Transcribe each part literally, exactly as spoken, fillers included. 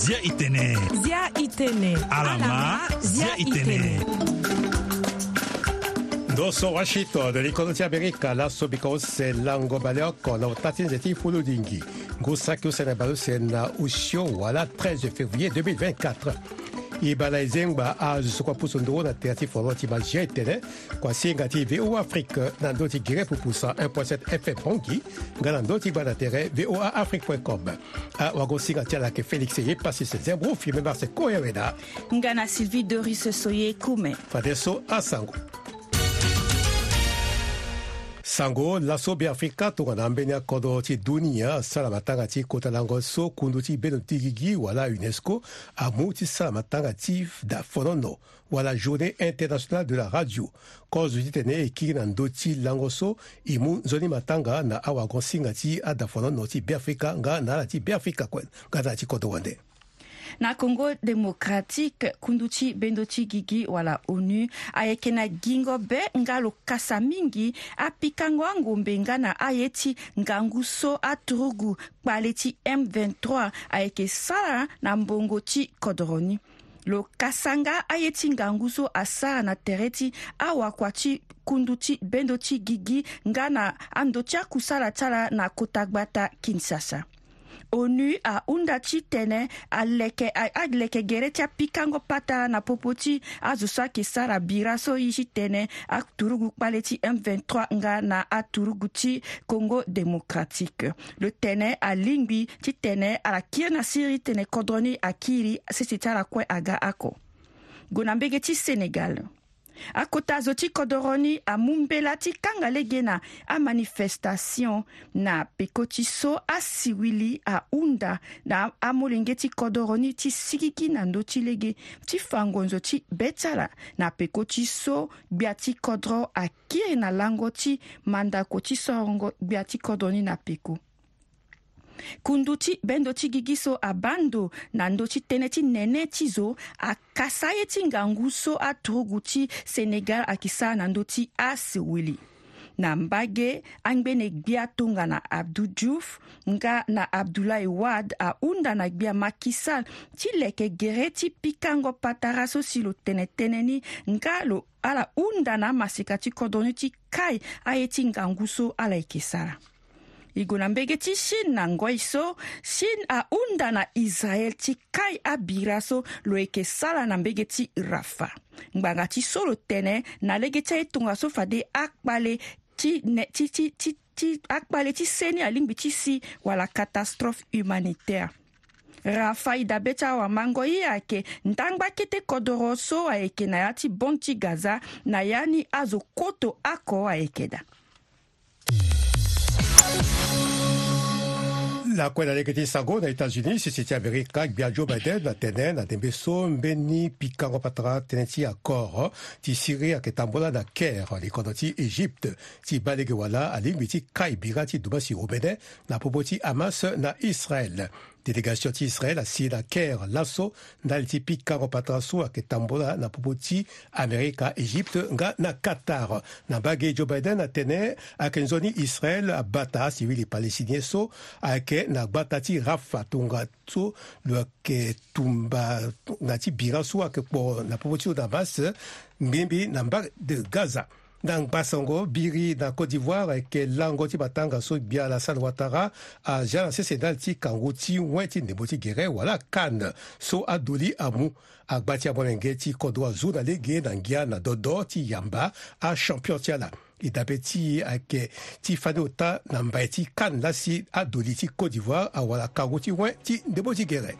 Zia itene. Zia itene. Alama, zia itene. Ndo so Washington, likondo ti Amerika, laso bika use lango baleoko na ota ti nze ti fulu lingi. Ngu saki use na baleuse na osio wala treize février deux mille vingt-quatre. E baa na e zengba azo so kue apusu nduru na tere ti foro ti ma zia itene. Kua singa ti V O A Afrique na ndö ti gere pupu cent un point sept F M Bangui, nga na ndö ti gbanda tere V O A Afrique point com. Awagosinga ti ala ayeke Félix Eyepassis Zembro, Firmin Marse Koyaweda. Nga na Sylvie Doris Soye Kume. Fadeso asango. Sango. Laso Beafrika tongana ambeni akodro ti dunia asara matanga ti kota lango so kundu ti bendo ti gigi wala UNESCO amu ti sara matanga ti dafonono wala Journée Internationale de la Radio. Kozo titene e kiri na ndö ti lango so e mu nzoni matanga na awagosinga ti adafonono ti Beafrika nga na ala ti Beafrika kue nga na ala ti kodro wande. Na Congo Démocratique, kundu ti bendo ti gigi wala ONU ayeke na gingo be nga lo kasa mingi apikango angombe nga na aye ti ngangu so aturugu kpale ti M vingt-trois ayeke sara na mbongo ti kodro ni. Lo kasa nga aye ti ngangu so asara na tere ti awakua ti kundu ti bendo ti gigi nga na ando ti akusala ti ala na kota gbata Kinshasa. ONU ahunda titene aleke a- aleke gere ti apikango patara na popo ti azo so ayeke sara bira so e titene aturugu kpale ti M vingt-trois nga na aturugu ti Congo Démocratique. Lo tene alingbi titene ala kiri na siriri titene kodro ni akiri sese ti ala kue aga oko. Gue na mbege ti Sénégal. Akota zo ti kodoro ni amu mbela ti kanga lege na amanifestation na peko ti so asiwili ahunda na amolenge ti kodoro ni ti sigigi na ndö ti lege ti fa ngonzo ti be ti ala na peko ti so gbia ti kodro akiri na lango ti mandako ti sorongo gbia ti kodro ni na peko. Kundu ti bendo ti gigi so abaa ndo na ndö ti tënë ti nene ti zo akasa ye ti ngangu so aturugu ti Sénégal ayeke sara na ndö ti aseweli. Na mbage, angbene gbia tongana Abdou Diouf nga na Abdoulaye Wade ahunda na gbia Macky Sall ti leke gere ti pikango patara so si lo tene tënë ni nga lo ala hunda na amaseka ti kodro ni ti kai aye ti ngangu so ala yeke sara. E gue na mbege ti Chine na ngoi so, Chine ahunda na Israël ti kai abira so lo yeke sara na mbege ti Rafah. Ngbanga ti so lo tene na lege ti aye tongaso fade akpale ti ne ti ti ti ti akpale ti seni alingbi ti si wala catastrophe humanitaire. Rafah e dabe ti awamango ye ayeke ndangba kete kodoro so ayeke na ya ti bande ti Gaza na ya ni azo koto oko ayeke daa. Lakue na lege ti sango na États-Unis, sese ti Amerika, gbia Joe Biden atene na ndembe so mbeni pikango patara tënë ti accord ti Syrie ayeke tambola na Caire, likondo ti Égypte, ti baa lege wala alingbi ti kai bira ti dumbasi omene na popo ti Hamas na Israël. Délégation ti Israël asi na Caire laso ndali ti pikango patara so ayeke tambola na popo ti Amerika, Égypte nga na Qatar. Na mbage, Joe Biden atene ayeke nzoni Israël abata asiwili palestinien so ayeke na gbata ti Rafah tongaso lo yeke tumba na ti bira so ayeke kpo na popo ti lo na Hamas, ngbiengbi na mbage de Gaza. Na ngbasango biri na Côte d'Ivoire ayeke lango ti matanga so gbia Alassane Ouattara azia na sese ndali ti kangu ti wen ti ndembo ti gere wala CAN so adoli amu. Agba ti amolenge ti kodro azu na lege na ngia na dodo ti yamba achampion ti ala. E dabe ti e ayeke ti fani ota na mbai ti CAN lasi adoli ti Côte d'Ivoire awara kangu ti wen ti ndembo ti gere.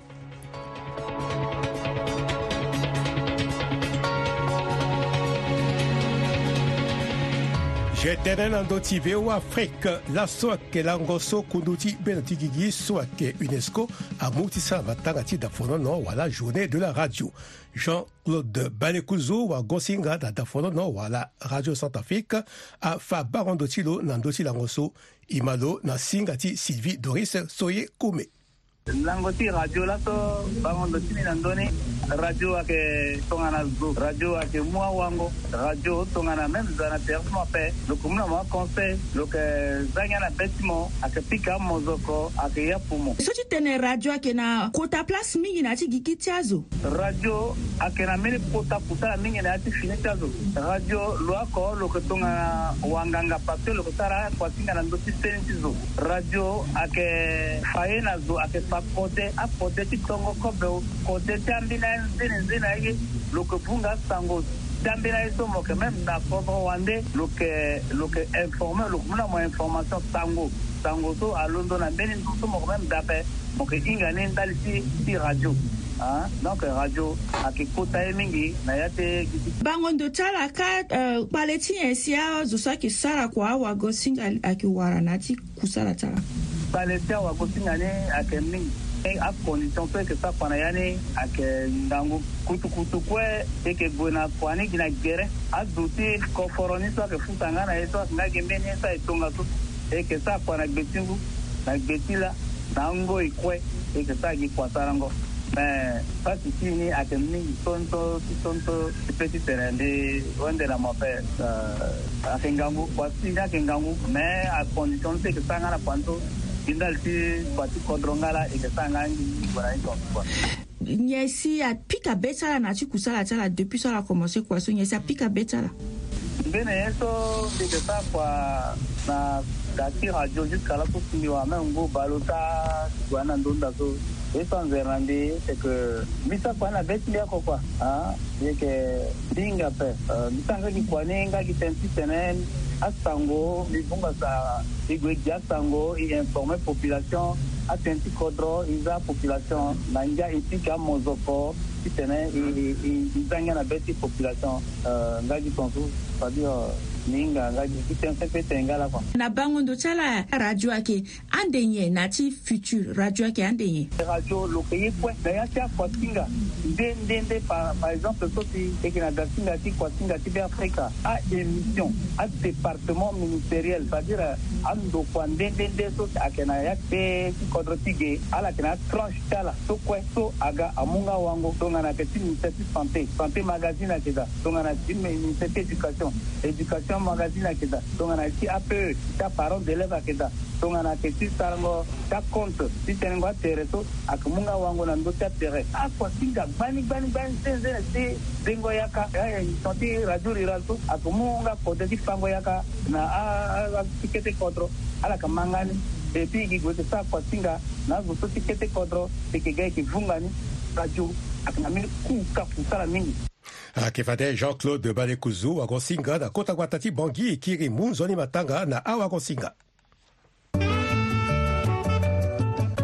Je tene na ndö ti V O A Afrique, laso ayeke lango so kundu ti bendo ti gigi so ayeke UNESCO amu ti sara matanga ti dafonono wala Journée de la Radio. Jean-Claude Balekuzu, wagosinga na dafonono wala Radio Centrafrique, afa bango ndo ti lo na ndö ti lango so. E ma lo na singa ti Sylvie Doris Soye Kome. Lango ti radio laso bango ndo ti ni na ndoni. Radio ayeke tongana zo, radio ayeke mu awango, radio tongana même zo na terrain ti mo ape, lo ke mu na mo aconseil, lo ke za ngia na be ti mo, ayeke pika amozoko, ayeke ya pumo. So ti tene radio ayeke na kota place mingi na ya ti gigi ti azo. Radio ayeke na mbeni kota kusala mingi na ya ti fini ti azo. Radio lo oko lo ke tongana wanganga parce que lo ke sara akuasinga na ndö ti seni ti zo. Radio ayeke fa ye na zo, ayeke fa kode akode ti tongo kobe, kode ti ambeni aye nzene nzene aye. Lo ke vunga asango ti ambeni aye so mo yeke même na kodro wande lo ke, lo ke informe, lo ke mu na mo information sango. Sango so alondo na mbeni ndo so mo yeke même dape. Mo yeke hinga ni ndali ti, ti radio. Ah, donc radio ayeke kota ye mingi na ya ti gigi. Bango ndo ti ala ka, eh, kpale ti nyen si azo so ayeke sara kua awagosinga ayeke wara na ya ti kusala ti ala? Kpale ti awagosinga ni ayeke mingi. E, acondition so e yeke sara kua na ya ni ayeke ngangu. Kutukutu kue e yeke gue na kua ni gi na gere. Azo ti koforo ni so ayeke futa nga na e so ayeke nga gi mbeni ye so aye tongaso. E yeke sara kua na gbe ti ngu, na gbe ti la, na angoi kue e yeke sara gi kua sarango. Me pasi ti e ni ayeke mingi tonso ti tonso ti pe ti tene mbi wende na mo ape. Eh, ayeke ngangu, kua ti e ni ayeke ngangu, me acondition so e yeke sara nga na kua ni so gi ndali ti kua ti kodro nga la e yeke sara nga ngingi gue na ni tongaso kua. Nyen si apika be ti ala na ya ti kusala ti ala depuis so ala komanse kua so, nyen si apika be ti ala? Mbeni ye so mbi yeke sara kua na da ti radio jusqu'à laso si mbi wara même ngu baleota ti gue na ndonda so. Ye so anzere na mbi c'est que mbi sara kua na be ti mbi oko kua. Ah, mbi yeke hinga ape. Eh, mbi sara nga gi kua ni nga gi tënë ti tene asango mbi vunga sa. E gue e gi asango, e informe population, atënë ti kodro, e za population na ngia, e pika amozoko ti tene e, e, e, e za ngia na be ti population. Eh, nga gi tongaso, c'est-à-dire, eh, mbi hinga nga gi, gi tënë sempele ti tene nga laa kua. Na bango ndo ti ala, radio ayeke ande nyen na ya ti futur? Radio ayeke ande nyen? Radio lo yeke ye kue na ya ti akuasinga nde nde nde. Par, par exemple so si e yeke na dasinga ti kuasinga ti Beafrika, a-émission, adépartement ministériel, c'est-à-dire andokua nde nde nde so ayeke na ya ti be ti kodro ti ge, ala yeke na atranche ti ala so kue so aga amu nga wango. Tongana ayeke ti ministère ti santé, santé magazine ayeke daa. Tongana ti ministère ti éducation, éducation magazine ayeke daa. Tongana ti A P E, ti aparent d'élève ayeke daa. Tongana ayeke ti sarango ti acompte ti tenengo atere so, ayeke mu nga wango na ndö ti atere. Akuasinga gbani gbani gbani ti nzene ti dengo yaka, eh, émission ti radio rural so ayeke mu nga kode ti fango yaka na a, a, a, ti kete kodro. Ala yeke ma nga ni. Et puis e gi gue e yeke sara kuasinga na azo so ti kete kodro, e yeke ga e yeke vunga ni. Radio ayeke na mbeni ku ka kusala mingi. Ayeke fade Jean-Claude Balekuzu, wagosinga na kota gbata ti Bangui, e kiri mu nzoni matanga na awagosinga.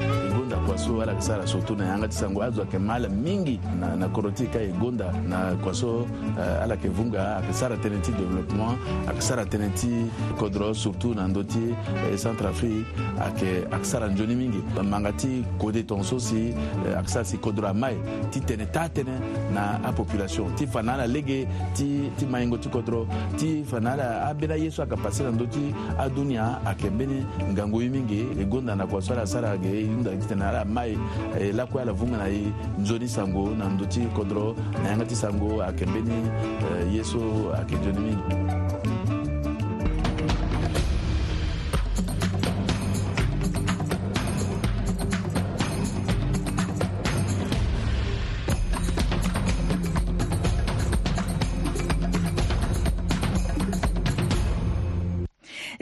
E gonda kua so ala yeke sara surtout na yanga ti sango, azo ayeke ma ala mingi na, na kodro ti e ka. E gonda na kua so, eh, ala yeke vunga, ayeke sara tënë ti développement, ayeke sara tënë ti kodro surtout na ndö ti, eh, Centrafrique, ayeke, ayeke sara nzoni mingi. Manga ti kode tongaso si, eh, ayeke sara si kodro amai ti tene taa tënë na apopulation, ti fa na ala lege ti, ti maingo ti kodro, ti fa na ala ambeni aye so ayeke pase na ndö ti adunia ayeke mbeni ngangu ye mingi. E gonda na kua so ala sara ge, e hunda titene ala mai, eh, lakue ala vunga na e nzoni sango na ndö ti kodro, na yanga ti sango ayeke mbeni, eh, ye so ayeke nzoni mingi.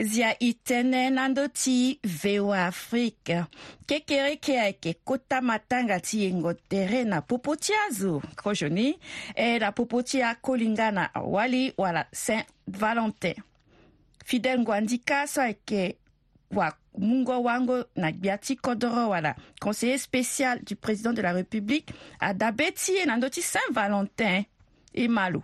Zia e tene na ndö ti V O A Afrique. Kekereke ayeke kota matanga ti yengo tere na popo ti azo kozoni, e na popo ti akolinga na wali wala Saint Valentin. Fidèle Ngwandika so ayeke wa mungo wango na gbia ti kodoro wala conseiller spécial du président de la République, adabe ti e na ndö ti Saint Valentin. E ma lo.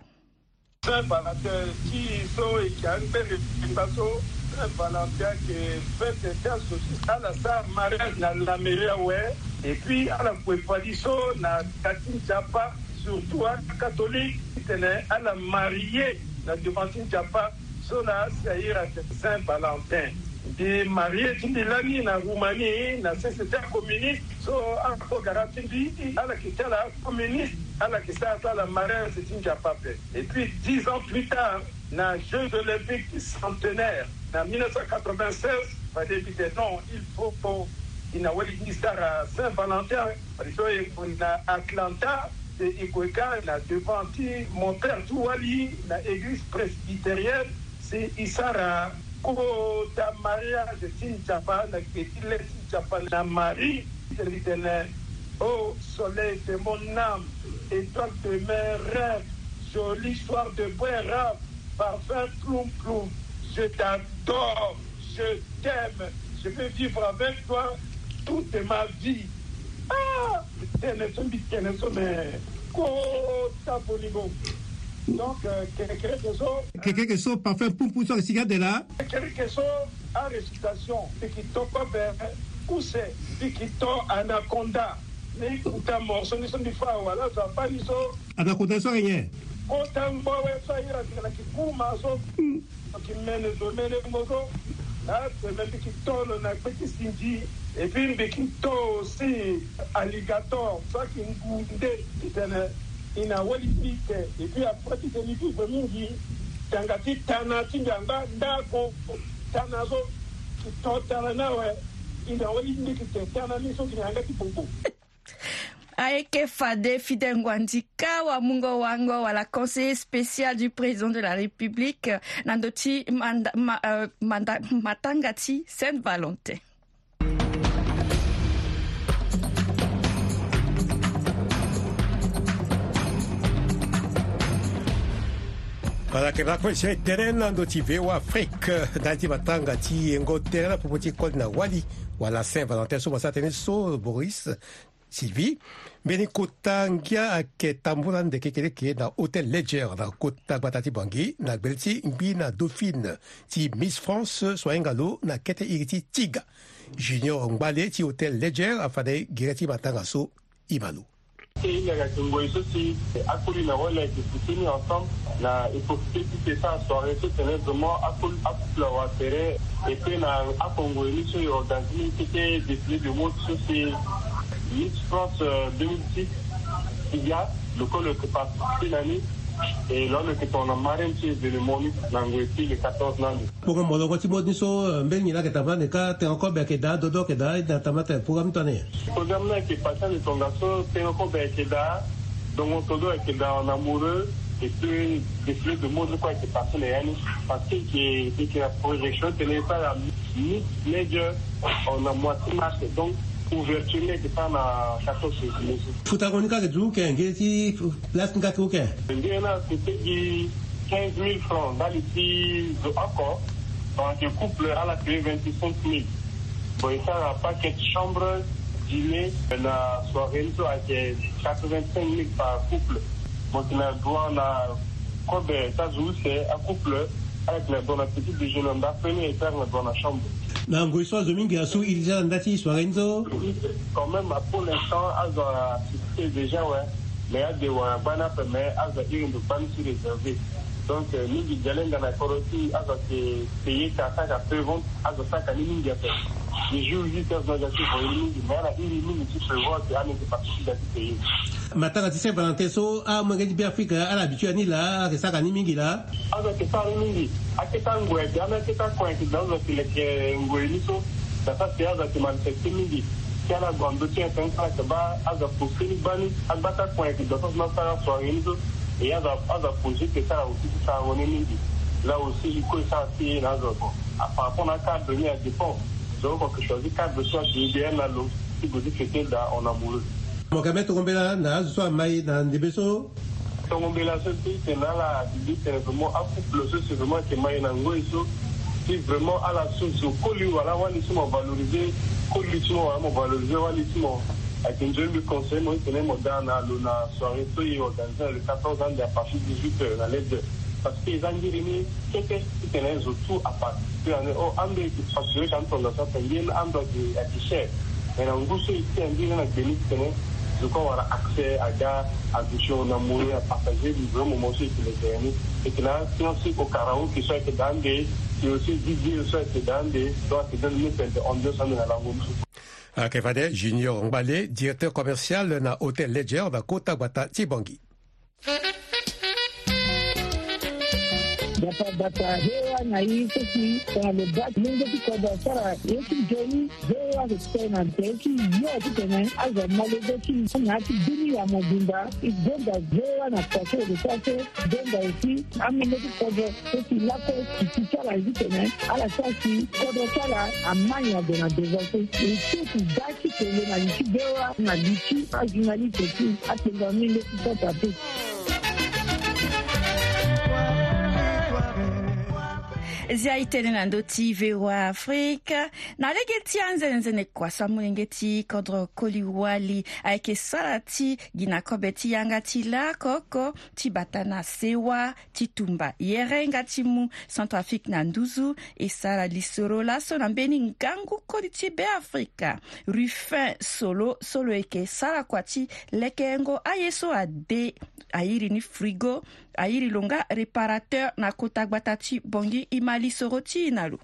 Saint Valentin ti e so e yeke angbere ti mba so. Saint Valentin ayeke fête ti azo ti ala sara mariage na la mairie awe. Et puis ala kue fadi so na ka ti nzapa, surtout acatholique, titene ala marie na devant ti nzapa. So na asi ayeke Saint Valentin. Mbi marie ti mbi lani na Roumanie na société communiste. So akogara ti mbi ala yeke ti ala communiste, ala yeke sara ti ala mariage ti nzapa ape. Et puis dix ans plus tard, na Jeux Olympiques centenaire na mille neuf cent quatre-vingt-seize, fade mbi tene non, il faut e na wali ti mbi sara Saint Valentin. Fade so e gue na Atlanta, si e gue ka na devant ti monteur ti wali na église presbytérienne, si e sara kota mariage ti nzapa na gbe ti le ti nzapa na Marie. Mbi tene, oh soleil de mon âme, étoile de mes rêves, joli soir de brun rave, parfum ploum ploum, je t'adore, je t'aime, je veux vivre avec toi toute ma vie. Ah, mbi tene so, mbi tene so, mais kota bolingo. Donc euh, kerekereke so, kerekereke so, parfum ploum ploum so ayeke sigi ande laa. Kerekereke so, arécitation, mbi yeke to kobe, kuse, mbi yeke to anaconda. Mbi kuta morceau ni so mbi fâ awe, ala zo abaa ni so. Anaconda so ayeke nyen? Kota ngbo awe so ahiri atene na kikuma so. Mbi yeke mene zo, mene ngbo so. Atene mbi yeke to lo na gbe ti sinzi. Et puis mbi yeke to aussi alligator so ayeke ngu nde. Mbi tene e na wali ti mbi te. Et puis après ti tene mbi vivre mingi, tanga ti tana ti mbi angba ndako. Tana so, e to tana ni awe. E na wali ti mbi te, tana ni so e na yanga ti bobo. Ayeke fade Fidèle Nguandika, wamungo wango wala conseiller spécial du président de la République, euh, na ndö ti manda, ma, euh, manda, matanga ti Saint Valentin. Wala yeke na kue si e tene na ndö ti V O A Afrique, ndali ti matanga ti yengo tere na popo ti koli na wali wala Saint Valentin so mo sara tënë so, Boris. Sylvie, mbeni kota ngia ayeke tambula ande kekereke na Hôtel Ledger na kota gbata ti Bangui na gbele ti ngbi na dauphine ti Miss France so ahinga lo na kete iri ti Tiga. Junior Ngbale ti Hôtel Ledger afa na e gere ti matanga so. Ima lo. E hinga ayeke ngoi so si akoli na wali ayeke soutenu ensemble na e profiter ti e sara soirée so tene vraiment akoli, akouple awa tere. Et puis na akongoi ni so e organiser ni kete défilé de mode so si Miss France, euh, deux mille six, Tiga, lo kue lo yeke participer na ni. Et lo lo yeke tongana marraine ti événement ni na ngoi ti le quatorze ni ande. Bongo molongo ti mode ni so, euh, mbeni nyen la ayeke tambula ande ka, tengo kobe ayeke daa, dodo ayeke daa, e na tambula tene programme ni tongana nyen? Programme ni ayeke passé ande tongaso, tengo kobe ayeke daa, dongo todo ayeke daa en amoureux. Et puis défilé de mode ni kue ayeke passé na ya ni. Parce que e yeke, e yeke na projection tene e sara Miss Ledger na mois ti mars. Donc ouverture ni ayeke sara na quatorze février so. Futango ni kâ ayeke duti uke, ngiri ti place ni kâ ayeke uke? Ngiri ni ayeke ti gi quinze mille francs ndali ti zo oko. Donc couple ala paye vingt-cinq mille. Bon, e sara paquet chambre, dîner, na soirée ni so ayeke quatre-vingt-cinq mille par couple. Mo yeke na droit na kobe ti azo use, acouple, ala yeke na droit na petit déjeuner, ndapre ni e sara na droit na chambre. Na ngoi so azo mingi asu iri ti ala na nda ti soirée ni so. Quand même, pour l'instant azo a assisté déjà, ouais. Mais ade wara gbani ape, mais azo a iri ndo gbani ti réservé. Donc euh, mingi dialenga na kodro ti azo ayeke payer ka saka pré-vente, azo asaka ni mingi ape. Ni jour huit heures na azo ayeke voye ni mingi, mais ala iri mingi ti prévoir ke ala yeke participer ti payer. Matanga ti Saint Valentin so amolenge ti Beafrika ala habitué na ni laa, ala yeke saka ni mingi laa. Azo ayeke sara ni mingi. Akete angoi ayeke daa, akete akon ayeke daa, azo ayeke leke ngoi ni so. Daa sara si azo ayeke manifester mingi. Si ala gue na ndö ti internet, ala yeke baa azo aposter ni gbani, agba ti akon ayeke daa so si na asara soirée ni so. Et azo, azo aposer ti sara aussi ti sarango ni mingi. Là aussi il faut e sara ti e na azo. Bon, par rapport na acadre ni, a dépend. Donc oko ayeke choisir cadre so ayeke idéal na lo ti gue ti fêter daa en amoureux. Mo yeke même tongo mbela na azo so amai na ndembe so. Tongo mbela so ti tene ala bibi tene vraiment acouple so si vraiment ayeke mai na ngoi so, si vraiment ala so zo koli wala wali ti mo, valoriser koli ti mo wala mo valoriser wali ti mo. Ayeke nzoni mbi conseiller mo ti tene mo daa na lo na soirée so e organiser na le quatorze ande à partir dix-huit heures na Ledger. Parce que eza ngiri ni kete ti tene zo tout à part. Ti tene o ando e yeke facturer ka ni tongaso ape, ngiri ni ando ayeke, ayeke cher. Mais na ngu so e ti angiri ni na gbe ni ti tene zo kue awara accès aga, aduti en amoureux, apartager le vrai moment so e yeke leke ni. E yeke na asian si ko karaoke so ayeke daa ande. Et aussi Didier so ayeke daa ande, so ayeke daa ande mbi tene ambiance ande na lango ni so. Ayeke fade Junior Ngbale, directeur commercial na Hôtel Ledger na kota gbata ti Bangui. Gbata gbata, V O A na e so si tongana lo baa ti lenge ti kodro asara ye ti nzoni, V O A ayeke tene na tere ti yo titene azo amolenge ti na ya ti bini ya mobimba. E gonda V O A na kua so e ke sara so, gonda aussi amolenge ti kodro so si lakue e ti sara ye titene ala sara si kodro ti ala amai ague na devant so. E ti e ti daa ti tene na li ti V O A na li ti ajournaliste ti apengo amolenge ti sota te. Zia e tene na ndö ti V O A Afrika. Na lege ti anzenenzene kua so amolenge ti kodro koli wali ayeke sara ti gi na kobe ti yanga ti lako oko ti bata na sewa ti tumba yerenga ti mu Centrafrique na nduzu. E sara lisoro laso na mbeni ngangu koli ti Beafrika, Rufin Solo, so lo yeke sara kua ti lekengo aye so ade, a iri ni frigo, a iri lo nga réparateur na kota gbata ti Bangui. E ma lisoro ti e na lo.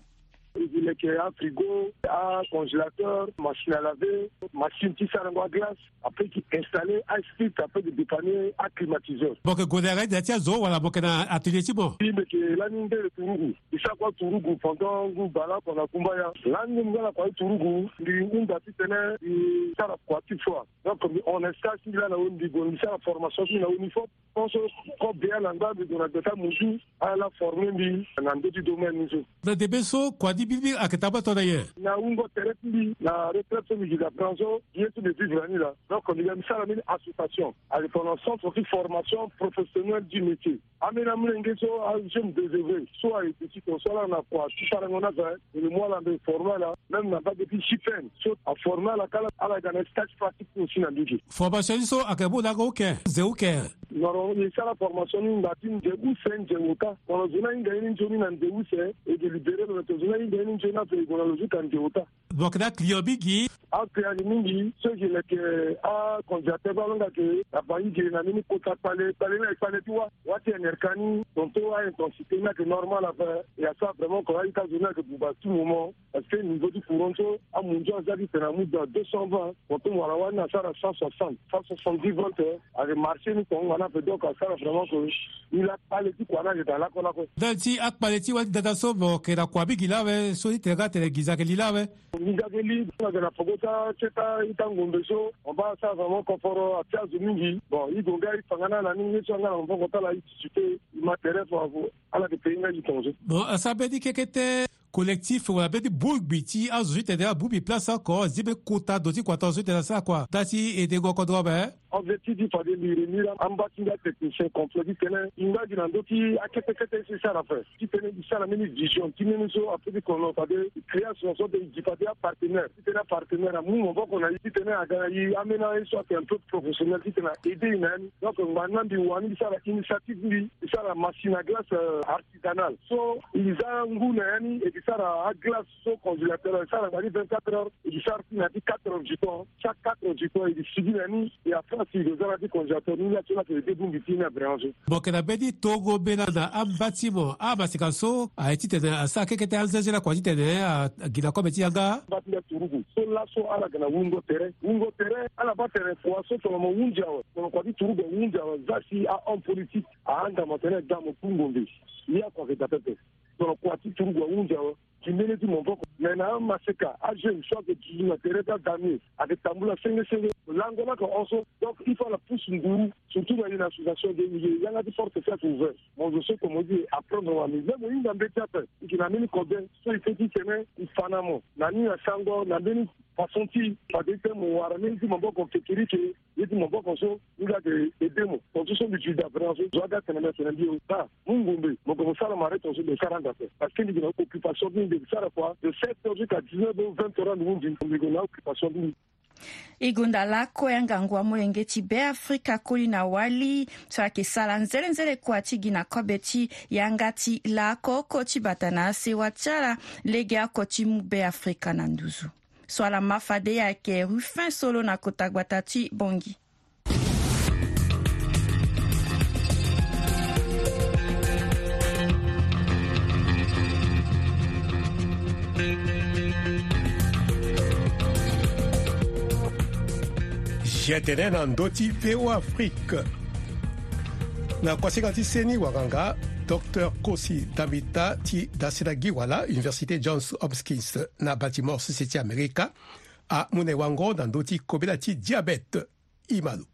E gi leke, afrigo, acongélateur, machine à laver, machine ti sarango aglace. Après, e ke installer asplit, après e ke dépanner aclimatiseur. Mo yeke gue na yanga ti da ti azo wala mo yeke na atelier ti mo? Mbi yeke lani ndele turugu. Mbi sara kua turugu pendant ngu bale oko na kumbaya. Lani mbi nga na kua ti turugu, mbi hunda titene mbi sara kua ti foi. Donc mbi hon na stage ti mbi lani na weni, mbi gue mbi sara formation ti mbi na weni fop. Pense kobea na ngba mbi gue na gbeta muzu, ala former mbi na ndö ti domaine ni so. Na ndembe so kua ni mbirimbiri ayeke tambula tongana nyen? Na wungo tere ti mbi na retraite so mbi gi na branche so, ye so mbi vivre na ni laa. Donc mbi ga mbi sara mbeni association, ayeke tongana centre ti formation professionnelle du métier. Ambeni amolenge so, ajeunes désœuvrés so ayeke ti ton so ala na kua ti sarango ni ape, e mu ala mbi former ala, même na mbage ti J P N so aformer ala kâ, ala ga na stage pratique aussi na mbage. Formation ni so ayeke mu lango uke, ze uke? Normalement e sara formation ni na nze use, nze ota. Tongana zo ni ahinga ye ni nzoni na nze use, e ke libérer lo, na tongana zo ni ahinga ye ni nzoni ape, e gue na lo zo ka nze ota. Mo yeke na aclient mingi? Aclient ayeke mingi. So e ke leke acongélateur, baa lo nga ke na Bangui, e ke na mbeni kota kpale, kpale ni ayeke kpale ti wâ, wâ ti N R K ni, tongaso a-intensité ni ayeke normal ape. E asara vraiment ke a-ita zo ni ayeke buba tout moment. Parce que niveau ti courant so, amunzu aza titene amu dans deux cent vingt, tongaso mo wara wâ ni asara cent soixante, cent soixante-dix volts, eh. Ayeke marché ni tongana ape, donc asara vraiment ke ni laa kpale ti kua ni ayeke daa lakue lakue. Ndali ti akpale ti wâ ti dada so, mo yeke na kua mingi laa awe, so ti tene nga atene nginza ayeke li laa awe? Nginza ayeke li, ayeke na peko ti a-, ti a-ita ngombe so, mo baa asara vraiment koforo, atia zo mingi. Bon, e gue nga e fa nga na ala ni, ye so a nga na maboko ti ala, e ti ti te, e ma tere fo. Ala yeke payé nga gi tongaso. Bon, asara mbeni kekete collectif wala mbeni bongbi ti azo so ti tene abongbi place oko, azi mbeni kota ndo ti kua tongaso ti tene asara kua, ndali ti edengo kodro ape? Objectif ti fade mbi remi laa, amba ti mbi atechnicien complet ti tene e nga gi na ndö ti akete kete so e sara ape. Ti tene e sara mbeni vision ti mbeni so, après ti kono fade e création so, e gi fade apartenaire. Ti tene apartenaire amu maboko na e, ti tene aga na e ambeni aye so ayeke un peu professionnel, ti tene a-aider e na ya ni. Donc ngbani laa mbi wani mbi sara initiative, mbi, mbi sara machine à glace, euh, artisanale. So e za ngu na ya ni, e ke sara aglace so congélateur, e sara ngbani vingt-quatre heures, e ke sara ti na ya ti quatre heures du temps. Chaque quatre heures du temps e ke sigi na ni, e après si e ke za na ya ti congélateur ni laa, so laa ayeke aider bongbi ti ni na vraiment so. Mo yeke na mbeni tongo mbela na amba ti mo, amaseka so aye ti tene asara kekete anzenze lakua ti tene a, a gi na kobe ti yanga? Amba ti mbi aturugu so laso ala yeke na wungo tere. Wungo tere, ala baa tene kua so tongana mo hunzi awe, tongana kua ti turugu ahunzi awe, za si ahomme politique ahanga mo atene daa mo tu ngombe. Ni akua ayeke daa pepe. Tongana kua ti turugu ahunzi awe, gi mbeni ti maboko. Mais na amaseka, ajeune so ayeke duzu na tere ti adamier, ayeke tambula senge senge. Lango ni ayeke hon so. Donc il faut ala pousse nguru, surtout na e na association de milieu, yanga ti porte so ayeke ouvert. Mo zo so tomo ti e apprendre wa, mais même mo hinga mbeti ape, e yeke na mbeni kobe so e peut ti tene e fa na mo na ni na sango na mbeni façon ti fade ti tene mo wara mbeni ti maboko kekereke. Ye ti maboko so ni laa ayeke aider mo. Tongaso so mbi duti daa vraiment so, zo aga tene mbi atene mbi o daa mu ngombe, mo gue mo sara mare tongaso, mbi sara ande ape. Parce que mbi yeke na occupation ti mbi, mbi yeke sara kua de sept heures jusqu'à dix-neuf heures, vingt heures ande hunzi, mbi gue na occupation ti mbi. E gonda lakue angangu amolenge ti Beafrika koli na wali so ayeke sara nzelenzele kua ti gi na kobe ti yanga ti laoko oko ti bata na asewa ti ala, legeoko ti mu Beafrika na nduzu. So ala ma fade ayeke Rufin Solo na kota gbata ti Bangui. Ti e tene na ndö ti V O A Afrique. Na kuasinga ti seni wanganga, Docteur Kosi Dambita ti dasila gi wala Université Johns Hopkins na Baltimore, sese ti Amerika, amu na e wango na ndö ti kobela ti diabète. Imalo.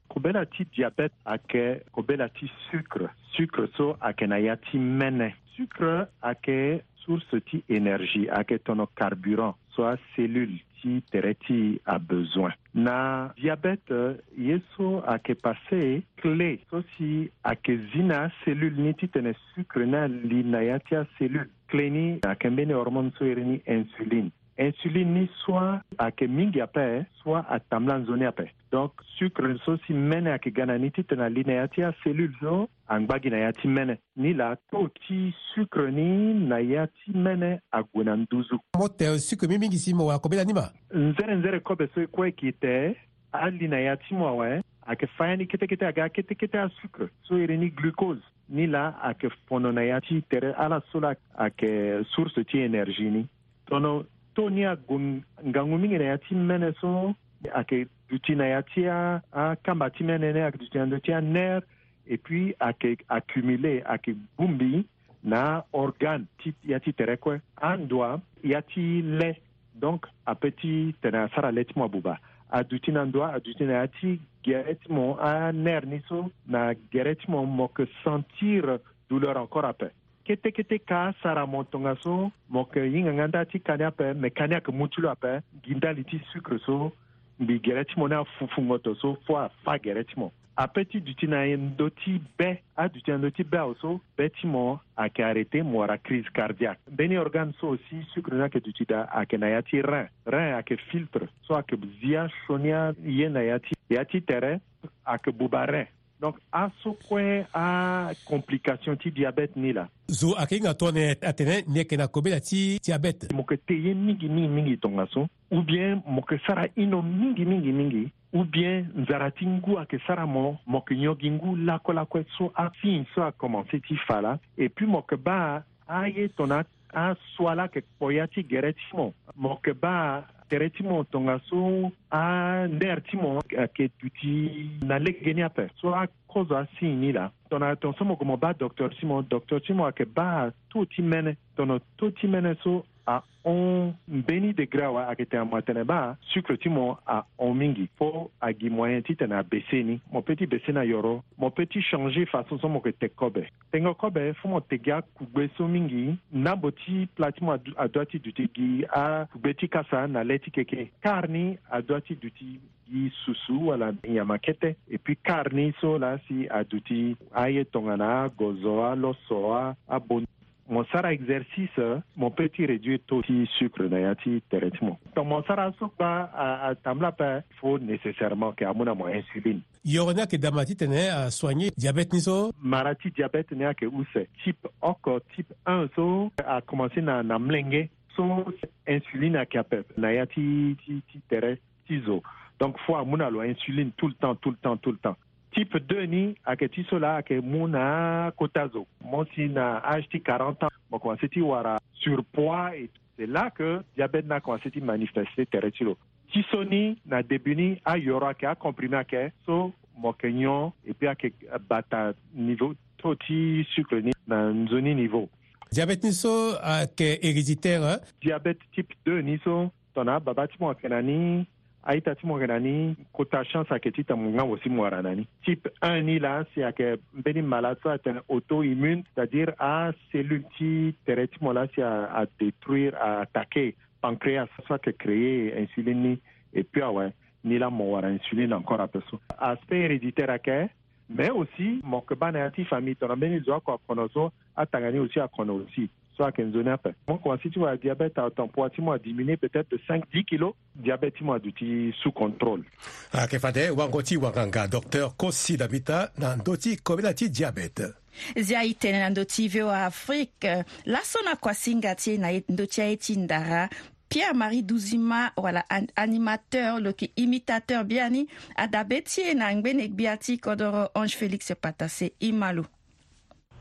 Kobela ti diabète ayeke kobela ti sucre. Sucre so ayeke na ya ti mene. Sucre ayeke source ti énergie, ayeke tono carburant so acellule ti tere ti e abezoin. Na diabète, ye so ayeke passé, clé so si ayeke zi na acellule ni titene sucre ni ali na ya ti acellule. Clé ni ayeke mbeni hormone so iri ni insuline. Insuline ni soit ayeke mingi ape, soit atambula nzoni ape. Donc sucre so si mene ayeke ga na ni titene ali na ya ti acellule so angba gi na ya ti mene. Nilaa taux ti sucre ni na ya ti mene ague na nduzu. Mo te sucre mingi mingi si mo wara kobela ni ma. Nzere nzere kobe so e kue e ke te, ali na ya ti mo awe, ayeke fa ya ni kete kete aga kete kete asucre so iri ni glucose. Nilaa ayeke fono na ya ti tere ala so laa ayeke source ti énergie ni. Tono taux ni ague ngangu mingi na ya ti mene so ayeke duti na ya ti a, akamba ti mene ni, ayeke duti na ndö ti anerf, et puis ayeke accumulé, ayeke bongbi na aorgane ti ya ti tere kue. Andoa ya ti le, donc ape titene asara le ti mo abuba. Aduti na ndoa, aduti na ya ti gere ti mo, anerf ni so na gere ti mo, mo yeke sentir douleur encore ape. Kete kete ka asara mo tongaso mo yeke hinga nga nda ti ka ni ape, me ka ni ayeke mu ti lo ape gi ndali ti sucre so mbi gere ti mo ni afufu ngoto so fo afa gere ti mo. Ape ti duti na ndö ti be, aduti na ndö ti be awe so be ti mo ayeke arrêté, mo wara crise cardiaque. Mbeni organe so aussi sucre ni ayeke duti daa ayeke na ya ti rein. Rein ayeke filtre so ayeke zi asioni aye na ya ti, ya ti tere, ayeke buba rein. Donc aso kue acomplication ti diabète ni laa. Zo ayeke hinga tongana atene ni yeke na kobela ti diabète. Mo yeke te ye mingi mingi mingi tongaso, ou bien mo yeke sara ino mingi mingi mingi, ou bien nzara ti ngu ayeke sara mo, mo yeke nyon gi ngu lakue lakue. So asigne so akomanse ti fa laa. Et puis mo yeke baa aye tongana aso ala yeke kpo ya ti gere ti mo. Mo yeke baa tere ti mo tongaso anerf ti mo ayeke duti na legeni ape. So akozo asigne ni laa, tongana tongaso mo gue mo baa docteur ti mo, docteur ti mo ayeke baa taux ti mene. Tongana taux ti mene so ahon mbeni degré awe, ayeke tene mo atene baa sucre ti mo ahon mingi, fo agi moyen titene abaissé ni. Mo peut ti baissé na yoro, mo peut ti changé façon so mo yeke te kobe. Tengo kobe, fo mo te gi akugbe so mingi. Nambo ti pla ti mo adu-, adua ti duti gi akugbe ti kasa na le ti keke. Kar ni adua ti duti gi susu wala nyama kete. Et puis kar ni so laa si aduti aye tongana agozo, aloso, a, abon. Mo sara exercice, mo peut ti réduire taux ti sucre na ya ti tere ti mo. Donc mo sara so kpa a, atambula ape, fo nécessairement ke amu na mo insuline. Yoro ni ayeke dama titene asoigné diabète ni so? Mara ti diabète ni ayeke use. Type oko, type un so akomanse na, na mlenge. So insuline ayeke ape na ya ti, ti, ti tere ti zo. Donc fo amu na lo insuline tout le temps, tout le temps, tout le temps. Type deux ni ayeke ti so laa ayeke mu na akota zo. Mo si na âge ti quarante ans, mo komanse ti wara surpoids et tout. C'est là que diabète ni akomanse ti manifester tere ti lo. Ti so ni na début ni ayoro ayeke, acomprimé ayeke, so mo yeke nyon et puis ayeke bata niveau taux ti sucre ni na nzoni niveau. Diabète ni so ayeke héréditaire, hein? Diabète type deux ni so, tongana ababa ti mo ayeke na ni, a-ita ti mo ayeke na ni, kota chance ayeke titene mo nga mo si mo wara na ni. Type un ni laa si ayeke mbeni malade so atene auto-immune, c'est-à-dire acellule ti tere ti mo laa si a, adétruire, a attaqué pancréas so ayeke créer insuline ni. Et puis awe, ni laa mo wara insuline encore ape so. Aspect héréditaire ayeke, mais aussi mo yeke baa na ya ti famille, tongana mbeni zo oko akono so, atanga ni aussi akono aussi. So ayeke nzoni ape. Mo komanse ti wara diabète à temps, poids ti mo adiminué peut-être de cinq, dix kilos. Diabète ti mo aduti sous contrôle. Ayeke fade wango ti wanganga, Docteur Kosi Dambita, na ndö ti kobela ti diabète. Zia e tene na ndö ti V O A Afrique, laso na kuasinga ti e na ndö ti aye ti ndara, Pierre-Marie Duzima, wala an-, animateur, lo yeke imitateur biani, adabe ti e na ngbene gbia ti kodoro Ange Félix Patassé. E ma lo.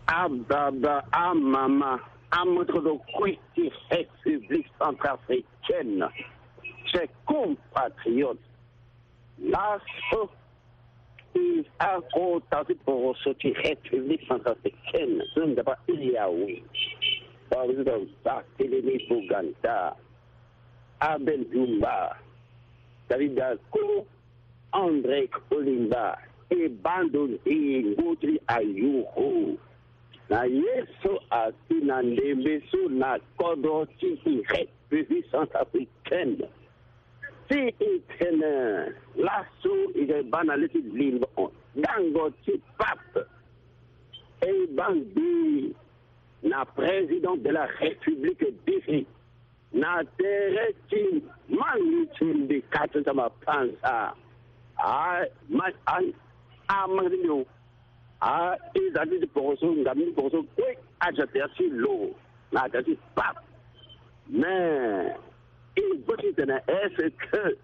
Ababa, amama, amoto kue ti République centrafricaine, chers compatriotes, Laso, i akota ti poroso ti République centrafricaine so nzapa iri awe. Par exemple, Barthélemy Boganda, Abel Djoumba, David Dako, André Kolimba, e bando nde ngu ti ayuru. Na ye so asi na ndembe so na kodro ti i République centrafricaine. Si i tene laso i ga baa na le ti limo gango ti pape. E baa nde na président de la République diri na tere ti mangi ti mbi kati ti mapanza. A, ma, a, a mangi ti mbi o. A, e za ti ti poroso, ngam ni poroso kue, a ja tere ti lo, na tere ti pape. Mais, e gbo ti tene est-ce que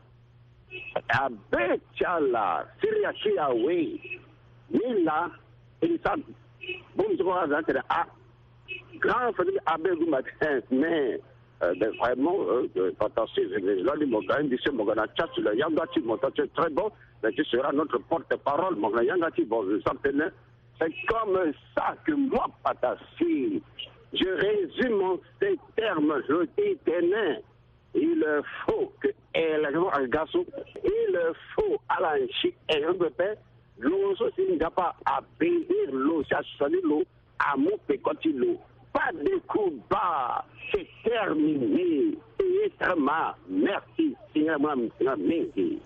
abe ti ala, siri ya ti awe, ni la, e sa, bon, je crois, a za tene, a, grand famille abe gumba, mais, euh, ben, vraiment, euh, euh, fantastique, je, je, je, mo ga, mo ga na chat, le yanga ti mo, ça, c'est très bon, mais tu seras notre porte-parole, mo ga na yanga ti, bon, je sens que, c'est comme ça que moi, Patasi, je résume en ces termes, je dis, tenez, il faut que, eh, la, il faut, ala nsi, eh, lo so si nzapa abénir lo, si asoni lo, amu peko ti lo. Pas de combat, c'est terminé. Eyetama, merci, singa mwa, singa mingi.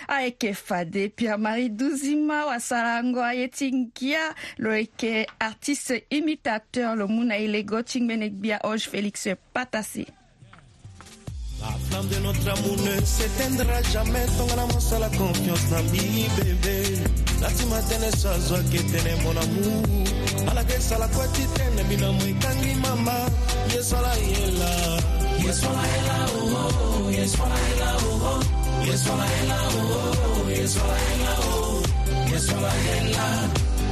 Ayeke fade Pierre Marie Duzima wasarango aye ti ngia, lo yeke artiste imitateur, lo mu na e lego ti ngbene gbia Ange Félix Patasi. La flamme de notre amour ne s'éteindra jamais. Tongana mo sala confiance na mbi, bébé. Nati matene so azo ake tene, mon amour. Ala ke sala kue ti tene mbi na mo ekangi mama. Ye sala ye la. Ye sala ye la, oh, oh. Ye sala ye la, oh, oh. Ye sala ye la, oh, oh. Ye sala ye la, oh. Ye sala ye la.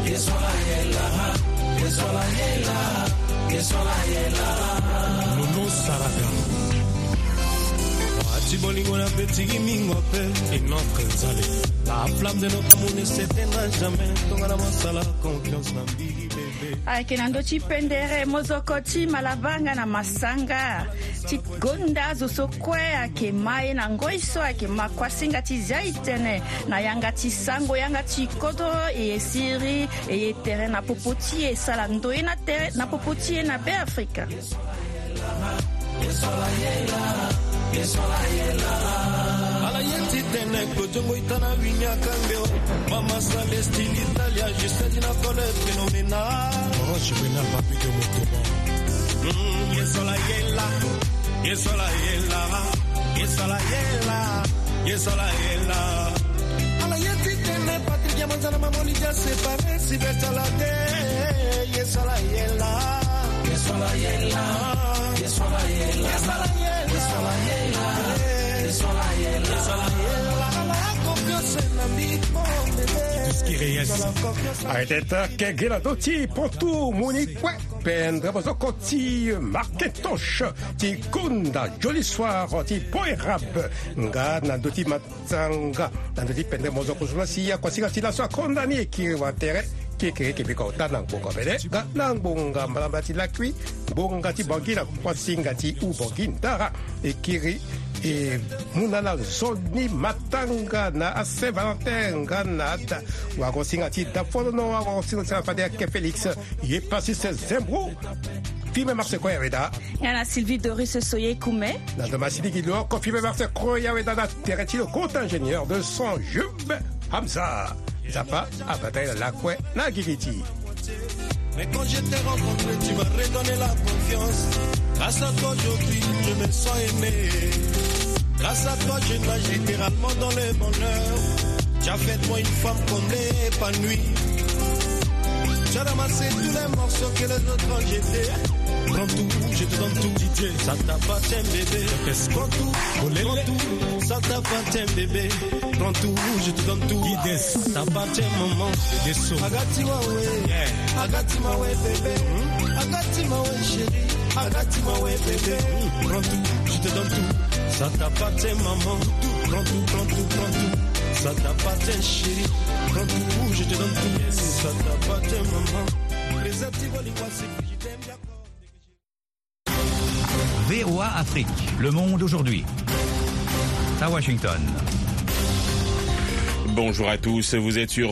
Ye sala ye la. Ye sala ye la. Ye sala ye la. Nono Sarada. Wa ti bolingo na beti gi mingo pe. Et notre nzale. La flamme de notre amour ne s'éteindra jamais. Tongana mo sala confiance na mbi, bébé. Ayeke na ndö ti pendere mozoko ti malabanga na masanga ti gonda zo so kue ayeke ma e na ngoi so ayeke ma kuasinga ti zia e tene na yanga ti sango, yanga ti kodro, e siri e ye tere na popo ti e, sala ndoye na tere na popo ti e na Beafrika. Ala ye ti tene kojongo ita na wini akangbe o. Mama Salesti l'Italia, juste di na kole phénoménal. Oh, juvénal, papi de motoba. Mm, ye sala ye la. Ye sala ye la. Ye sala ye la. Ye sala ye la. Ala ye ti tene Patrick ya manzana mamoli dia séparé si betala de. Ye sala ye la. Ye sala ye la. Ye sala ye la. Ye sala ye la. Ye sala ye la. Ye sala ye la. Ala confiance na mbi, mon bébé. Disque Reyes. Ala confiance. Arrête, kegela doti potu moni kue. Pendre bozoko ti Marquintosh ti konda Joli Soir ti Poerab. Nga na ndö ti matanga na ndö ti pendre mozoko so la si akuasinga ti laso akonda ni e kiri wa tere. Kekere kebeka ota na ngbonga bele nga na ngbonga mbalambala ti lakui, ngbonga ti Bangi na kuasinga ti u Bangi ndara. E kiri e mu na ala nzoni matanga na a Saint Valentin nga na ada wagosinga ti da folono wagosinga ti fade ake Félix. Ye pasi se zembro. Fime marse kue ya weda. Nga na Sylvie Doris Soye Kume. Na ndo ma sidi gi lo oko fime marse kue ya weda na tere ti lo grand ingénieur de son Jube Hamza. Nzapa abata ye na lakue na gigi ti. Mais quand je t'ai rencontré, tu m'as redonné la confiance. Grâce à toi aujourd'hui, je me sens aimé. Grâce à toi, je nage littéralement dans le bonheur. Tu as fait de moi une femme comblée, épanouie. Tu as ramassé tous les morceaux que les autres ont jetés. Prends tout, je te donne tout. D J, ça t'appartient, bébé. Prends tout, prends tout, ça t'appartient, bébé. Prends tout, je te donne tout. Guidance. Ça t'appartient, maman. Des sons. Agati mawe. Yeah. Agati mawe, bébé. Hmm? Agati mawe, chérie. Agati mawe, bébé. Hmm. Prends tout, je te donne tout. Ça t'appartient, maman. Tout, prends tout, prends tout, prends tout. Ça t'appartient, chérie. Quand tu bouges, je te donne tout. Ça t'appartient, maman. Préservatif, Oliwa, c'est je t'aime, d'accord. V O A Afrique, le monde aujourd'hui. À Washington. Bonjour à tous, vous êtes sur